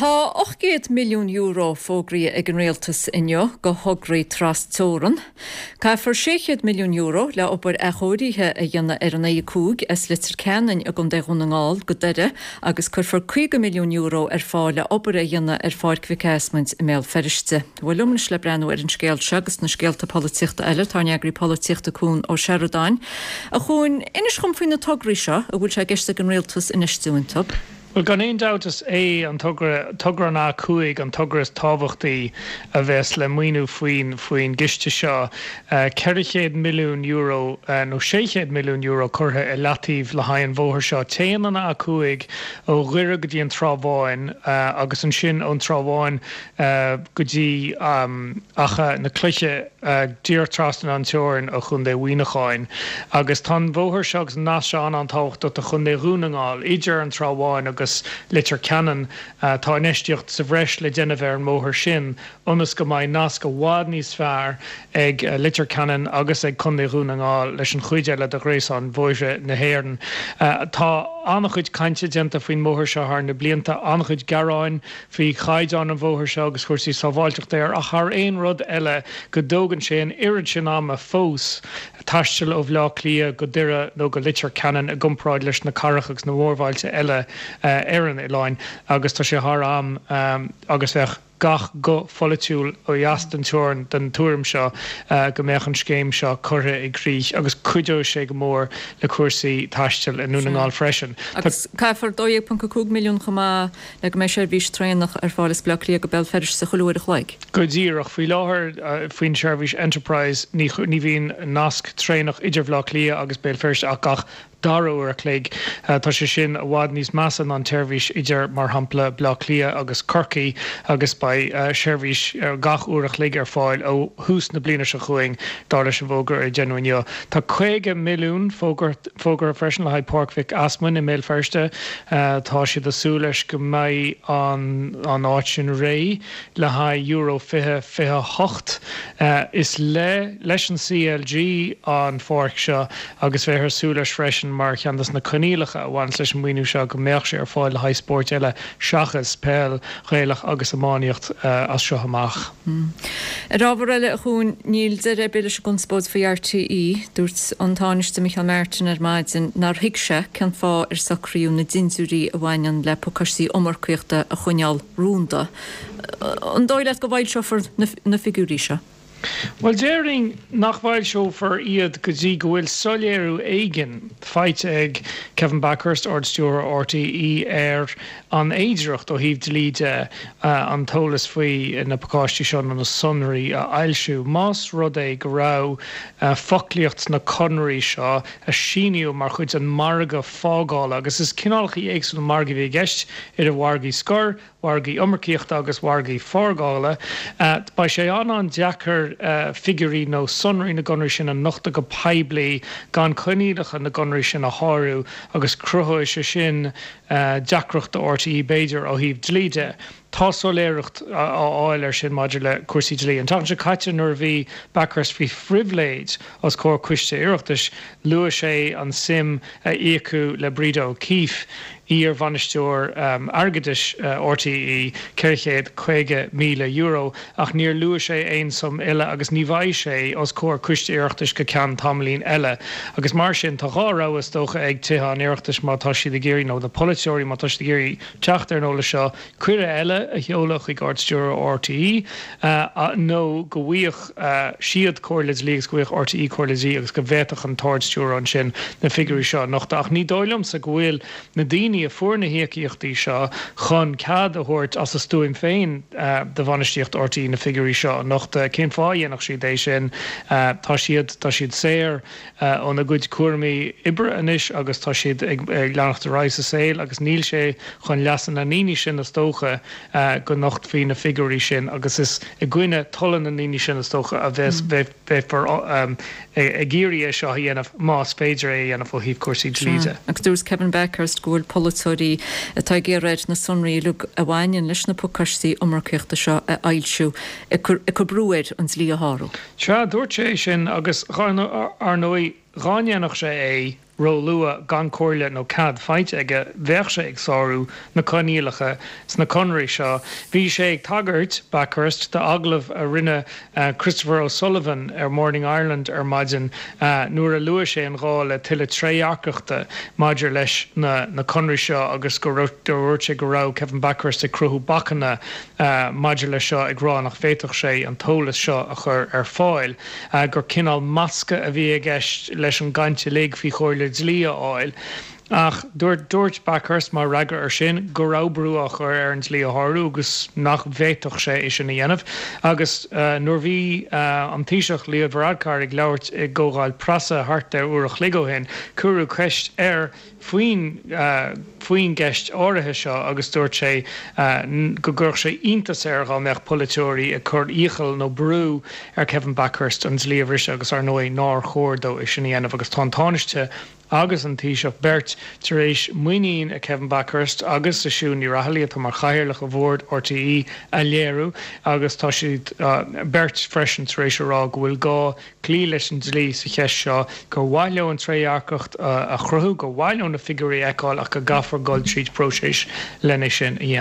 Tá €800 milliún fógraithe ag an Rialtas inniu do thograí tras-teorann. Caithfear €600 milliún le obair athchóirithe a dhéanamh ar an A5 as Leitir Ceanainn i gContae Dhún na nGall go Doire agus cuirfear €50 milliún ar fáil le obair a dhéanamh ar Pháirc Mhic Ásmaint i mBéal Feirste. Bhuel liom anois le breathnú ar an scéal seo agus na scéalta polaitíochta eile tá ár n-eagraí polaitíochta Cuan Ó Seireadáin. A Chuain, inis dhom faoi na tograí seo a bhfuil sé i gceist ag an Rialtas infheistiú iontu. Bhuel, gan aon dabht is é an togra, togra an A5, an togra is tábhachtaí a bheas le maoiniú faoin faoin gciste seo. €400 milliún nó €600 milliún curtha i leataobh le haghaidh an bhóthair seo. Téann an A5 ó Dhoire go dtí an Trá Bháin agus ansin ón Trá Bháin go dtí Achadh na Cloiche díreach trasna an teorainn ó Chontae Mhuineacháin. Agus tá an bhóthar seo agus an nasc seo an-an-tábhachtach do Chontae Dhún na nGall. Idir an Trá Bháin agus Leitir Ceanainn tá infheistíocht sa bhreis le déanamh ar an mbóthar sin ionas go mbeidh nasc i bhfad níos fearr ag Leitir Ceanainn agus ag Contae Dhún na nGall leis an chuid eile de ghréasán bhóithre na hÉireann. Tá an-chuid cainte déanta faoin mbóthar seo thar na blianta, an-chuid gearáin faoi chaighdeán an bhóthair seo agus chúrsaí sábháilteachta air ach thar aon rud eile go dtógann sé an oiread sin ama fós taisteal ó Bhleá Cliath go Doire nó go Leitir Ceanainn i gcomparáid leis na cathracha agus na mórbhailte eile ar an oileán agus tá sé thar am agus bheadh gach guth pholaitiúil ó dheas den teorainn den tuairim seo go mbeadh an scéim seo curtha i gcrích agus cuideoidh sé go mór le cúrsaí taistil i nDún na nGall freisin. Agus caithfear 12.5 milliún chomh maith le go mbeidh seirbhís traenach ar fáil as Baile Átha Cliath go Béal Feirste chuile uair a chloig. Go díreach. Faoi láthair, faoin tseirbhís Enterprise, ní bhíonn nasc traenach idir Bhaile Átha Cliath agus Béal Feirste ach gach dara uair a chloig. Tá sé sin i bhfad níos measa ná an tseirbhís idir, mar shampla, Baile Átha Cliath agus Corcaigh agus beidh seirbhís gach uair a chloig ar fáil ó thús na bliana seo chugainn, dar leis an bhfógra a deineadh inniu. Tá 50 milliún fógartha. Fógartha freisin le haghaidh Páirc Mhic Easmainn i mBéal Feirste. Tá siad ag súil leis go mbeidh an áit sin réidh le haghaidh Euro 2028. Is le leis an CLG an pháirc seo agus bheifear ag súil leis freisin mar cheann de na coinníollacha a bhaineas leis an maoiniú seo go mbeadh sé ar fáil le haghaidh spóirt eile seachas peil Ghaelach agus iománaíocht as seo amach. Ar ábhar eile, a Chuain, níl deireadh ar bith leis an gconspóid faoi RTÉ. Dúirt an Tánaiste Micheál Martin ar maidin nár thuig sé cén fáth ar socraíodh na dintiúirí a bhaineann le pacáistí iomarcaíochta a choinneáil rúnda. An dóigh leat go bhfoilseofar na figiúirí seo? Bhuel, déarfainn nach bhfoilseofar iad go dtí go bhfuil soiléiriú éigin faighte ag Kevin Bakhurst, Ard-Stiúrthóir RTÉ, ar an fhéidearthacht ó thaobh dlí de an t-eolas faoi na pacáistí seo nó na sonraí a fhoilsiú. Más rud é go raibh foclaíocht sna conarthaí seo a síníodh mar chuid den mhargadh fágála, agus is cineálacha éagsúla margaí a bhí i gceist, idir mhargaí scoir, mhargaí iomarcaíochta agus mhargaí fágála, beidh sé an-an-deacair figiúirí nó sonraí na gconarthaí sin a nochtadh go poiblí gan coinníollacha na gconarthaí sin a shárú agus cruthóidh sé sin deacracht do RTÉ b'fhéidir ó thaobh dlí de. Tá soiléireacht á fháil air sin maidir le cúrsaí dlí. An tseachtain seo caite nuair a bhí Bakhurst faoi phribhléid os comhair coiste Oireachtais, luaigh sé an suim a íocadh le Breda O'Keeffe, iar-bhainisteoir airgeadais RTÉ, €450,000, ach níor luaigh sé aon suim eile agus ní bheidh sé os comhair coiste Oireachtais go ceann tamaillín eile. Agus mar sin, tá dhá rogha is dócha ag Tithe an Oireachtais má tá siad ag iarraidh, nó na polaiteoirí má tá siad ag iarraidh teacht ar an eolas seo, cuireadh eile a sheoladh chuig Ard-Stiúrthóir RTÉ nó go bhfaigheadh siad comhairle dlí agus go bhfaigheadh RTÉ comhairle dlí agus go bhféadfadh an tArd-Stiúrthóir ansin na figiúirí seo a nochtadh. Ach ní dóigh liomsa go bhfuil na daoine a fuair na híocaíochtaí seo chun cead a thabhairt as a stuaim féin do bhainistíocht RTÉ na figiúirí seo a nochtadh. Cén fáth a dhéanfadh siad é sin? Tá siad, tá siad saor óna gcuid cúraimí oibre anois agus tá siad ag leanacht ar aghaidh sa saol agus níl sé chun leasa na ndaoine sin is dócha go nochtfaí na figiúirí sin agus is i gcoinne tola na ndaoine sin is dócha a bheas beifear ag iarraidh é seo a dhéanamh más féidir é a dhéanamh ó thaobh cúrsaí dlí de. Agus dúirt Kevin Bakhurst go bhfuil polaiteoirí atá ag iarraidh air na sonraí uilig a bhaineann leis na pacáistí iomarcaíochta seo a fhoilsiú ag cur brú air an dlí a shárú. Sea, dúirt sé é sin agus, ar ndóigh, dhá ndéanfadh sé é. róluath gan comhairle nó cead faighte aige, bheadh sé ag sárú na coinníollacha sna conarthaí seo. Bhí sé ag tagairt, Bakhurst, d'agallamh a rinne Christopher O'Sullivan ar Morning Ireland ar maidin nuair a luaigh sé an gá le tuilleadh trédhearcachta maidir leis na conarthaí seo agus go dúirt sé go raibh Kevin Bakhurst ag cruthú bacanna maidir leis seo ag rá nach bhféadfadh sé an t-eolas seo a chur ar fáil, gur cineál masca a bhí i gceist leis an gcaint uilig faoi chomhairle dlí a fháil. Ach dúirt dúirt Bakhurst mar fhreagra air sin go raibh brú á chur air an dlí a shárú agus nach bhféadfadh sé é sin a dhéanamh. Agus nuair bhí an Taoiseach Leo Varadkar ag labhairt i gcomhdháil preasa thart ar uair a chloig ó shin, cuireadh ceist air faoin faoin gceist áirithe seo agus dúirt sé go gcuirfeadh sé iontas air dhá mbeadh polaiteoirí ag cur iachall nó brú ar Kevin Bakhurst an dlí a bhriseadh agus ar ndóigh nár chóir dó é sin a dhéanamh agus tá an Tánaiste agus an Taoiseach beirt tar éis muinín i Kevin Bakhurst agus i Siún Ní Raghallaigh, atá mar chathaoirleach ar bhord RTÉ, a léiriú agus tá siad beirt freisin tar éis a rá go bhfuil gá cloí leis an dlí sa cheist seo, gur mhaith leo an trédhearcacht a chruthú, gur mhaith leo na figiúirí a fheiceáil ach go gcaithfear dul tríd próiseas lena sin a dhéanamh.